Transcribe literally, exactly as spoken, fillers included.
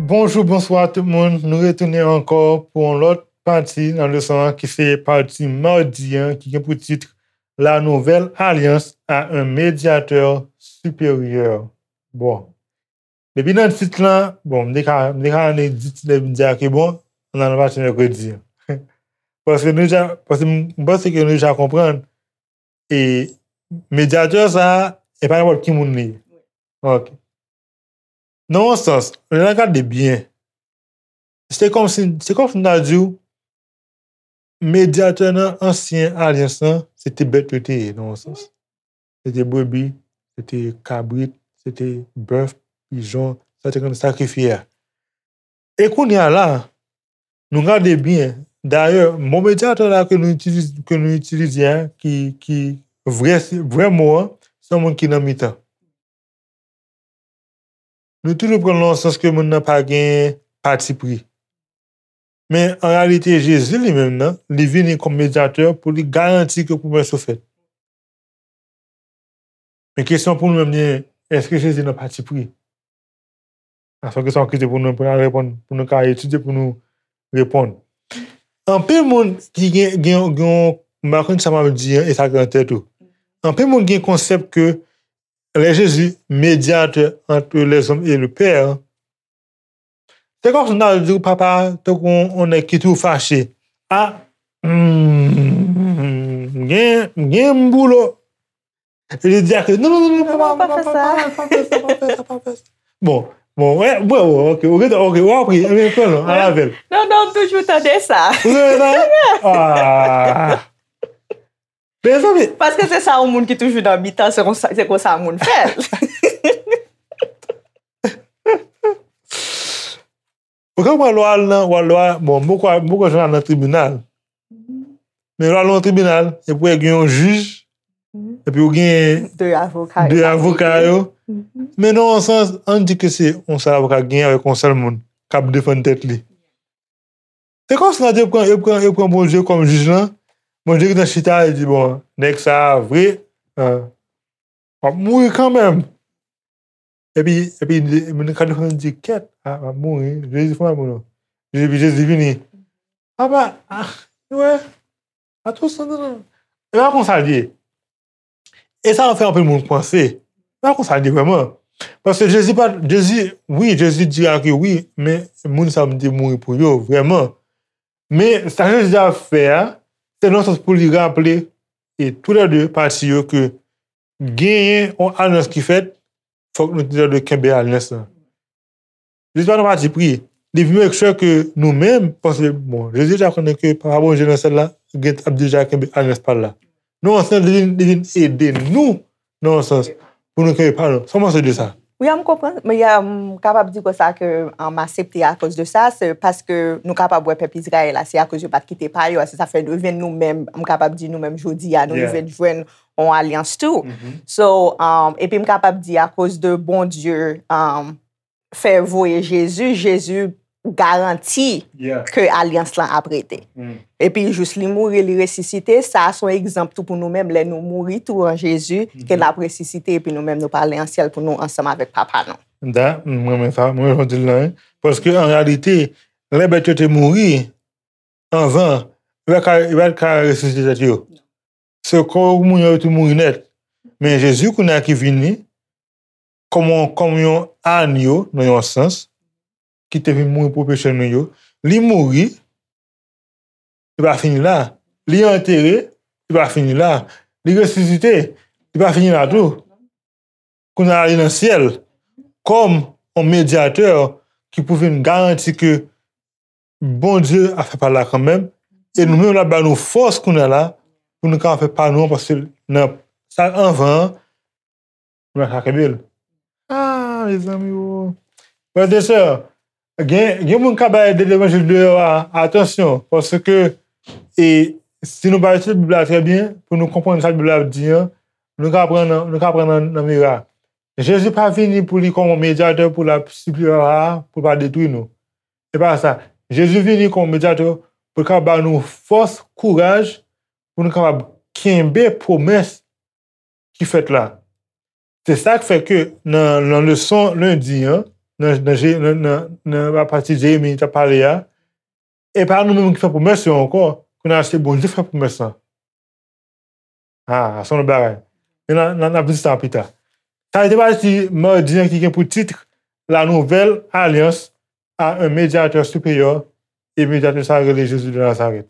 Bonjou, bonswa tout moun. Nou retounen ankò pou yon lòt pati nan leson an ki se pati madi an ki gen pou tit La nouvelle alliance a un médiateur supérieur. Bon. Depi nan tit lan, bon, m te ka, m te ka annik di tit la, m di a ke bon, ann al nan pati mèkredi an. Paske nou deja, paske m, m panse ke nou deja konprann, e medyatè sa a, e pa nenpòt ki moun li ye. Ok. Nan yon sans, lè n ap gade byen, se kòmsi, se kòmsi m ta di w, medyatè nan ansyen alyans lan, se te bèt yo te ye, nan yon sans. Se te brebi, se te kabrit, se te bèf, pijon, sa te konn sakrifye a. E kounye a la, nou gade byen, dayè, mo medyatè la ke nou itilize, ke nou itilize a, ki, ki vrè, vrè mo an, se yon moun ki nan mitan. Nou toujou pran l nan yon sans ke moun nan pa gen patipri. Men, an reyalite, Jezi li menm nan, li vini kòm medyatè pou li garanti ke pwomès yo fèt. Men kesyon pou nou menm, li, èske Jezi nan patipri? Sa se yon kesyon ki te pou nou, pou nou reponn, pou nou ka etidye, pou nou reponn. Anpil moun ki gen, gen, gen, m pa konn sa m ap di an, e sa ki nan tèt ou. Anpil moun gen konsèp ke lè Jezi, médiateur entre les hommes et le Père, se kòmsi m ta di w papa, tankou yon, yon nèg ki toujou fache. A, hmm, m gen, m gen m boulo. E li di a ke, non, non, non, non, papa, non, papa, pa fè sa, pa fè sa, pa fè sa. Bon, bon, wè, wè, wè, ok, ok, ok, w ap ri, ebyen, pran non, al avè l. Non, non, m toujou tande sa. Ou tande sa? Ah. Mezanmi. Paske se sa yon moun ki toujou nan mitan, se konsa, se konsa moun fè l. Ou konprann lè w al nan, lè w al, bon, m poko, m poko janm al nan tribinal. Men lè w al nan tribinal, epi w gen yon jij, epi w gen de avoka yo, de avoka yo. Men nan yon sans, ann di ke se yon sèl avoka k genyen avèk yon sèl moun k ap defann tèt li. Se kòmsi nan yo pran, yo pran, yo pran Bondye kòm jij lan. Bondye gentan chita, li di, bon, nèg sa a vre, ah, w ap mouri kanmenm. Epi, epi, moun ka defann di, kèt, ah, w ap mouri, Jezi fè w ap mouri. Epi Jezi vini. Apa, ah, wè, a tou san nan. E pa konsa l ye. E sa fè anpil moun panse. Pa konsa li vrèman. Paske Jezi pa, Jezi, wi, Jezi di a ke wi, men moun sa yo te mouri pou yo, vrèman. Men sa Jezi ap fè a, se nan sans pou li raple, e toulède pati yo ke genyen yon alyans ki fèt, fòk nou toulède kenbe alyans lan. Jezi pa nan pati pri. Li vin make sure ke nou menm, paske, bon, Jezi deja konnen ke Papa Bondye nan syèl la gen, ap deja kenbe alyans pa l la. Nan yon sans, li vin, li vin ede nou, nan yon sans, pou nou kenbe pa nou. Sa w panse de sa? Wi, m konprann. Men, m kapab di konsa ke, um, m aksepte akoz de sa, se paske nou kapab wè pèp Izrayèl la, se akoz yo pa t kite pa yo a, se sa fè nou jwenn nou menm, m kapab di nou menm jodi a, nou rive jwenn yon alyans tou. So, um, epi m kapab di akoz de Bondye, um, fè voye Jezi, Jezi garanti ke alyans lan ap rete. Epi jis li mouri, li resisite, sa a se yon egzanp tou pou nou menm, lè nou mouri tou an Jezi, ke l ap resisite, epi nou menm nou prale an syèl pou nou ansanm avèk Papa nou. Da, m renmen sa, m renmen jan w di l lan, wi. Paske an reyalite, lè bèt yo te mouri, anvan, yo pa ka, yo pa ka resisite tèt yo. Se kò moun yo tou mouri nèt. Men Jezi kounye a ki vini, kòm yon, kòm yon anyo, nan yon sans, ki te vin mouri pou peche nou yo, li mouri, li pa fini la. Li antere, li pa fini la. Li resisite, li pa fini la tou. Kounye a li nan syèl, kòm yon medyatè ki pou vin garanti ke Bondye ap fè pa l la kanmenm, e nou menm l ap ba nou fòs kounye a la, pou nou ka fè pa nou an, paske nan sa anvan an, nou pa ka kenbe l. Ah, mezanmi, o. Frè e sè, gen, gen moun k ap bay de levanjil deyò a, atansyon, paske, e, si nou pa etidye Bib la trè byen, pou nou konprann sa Bib la ap di an, nou ka pran nan, nou ka pran nan, nan mira. Jezi pa vini pou li kòm yon medyatè pou l ap sipliye Papa a, pou l pa detwi nou. Se pa sa. Jezi vini kòm yon medyatè pou l ka ba nou fòs, kouraj, pou nou kapab kenbe pwomès ki fèt la. Se sa k fè ke nan, nan leson lendi an, nan, nan, Je- nan, nan, nan apati Jeremi t ap pale a, e pa nou menm ki fè pwomès yo ankò, kounye a se Bondye fè pwomès lan. Ah, se yon lòt bagay. Men n a, n a, n a vin sa pita. Sa se te pati madi an ki gen pou tit La Nouvelle Alliance à un médiateur supérieur, e medyatè sa rele Jezi de Nazarèt.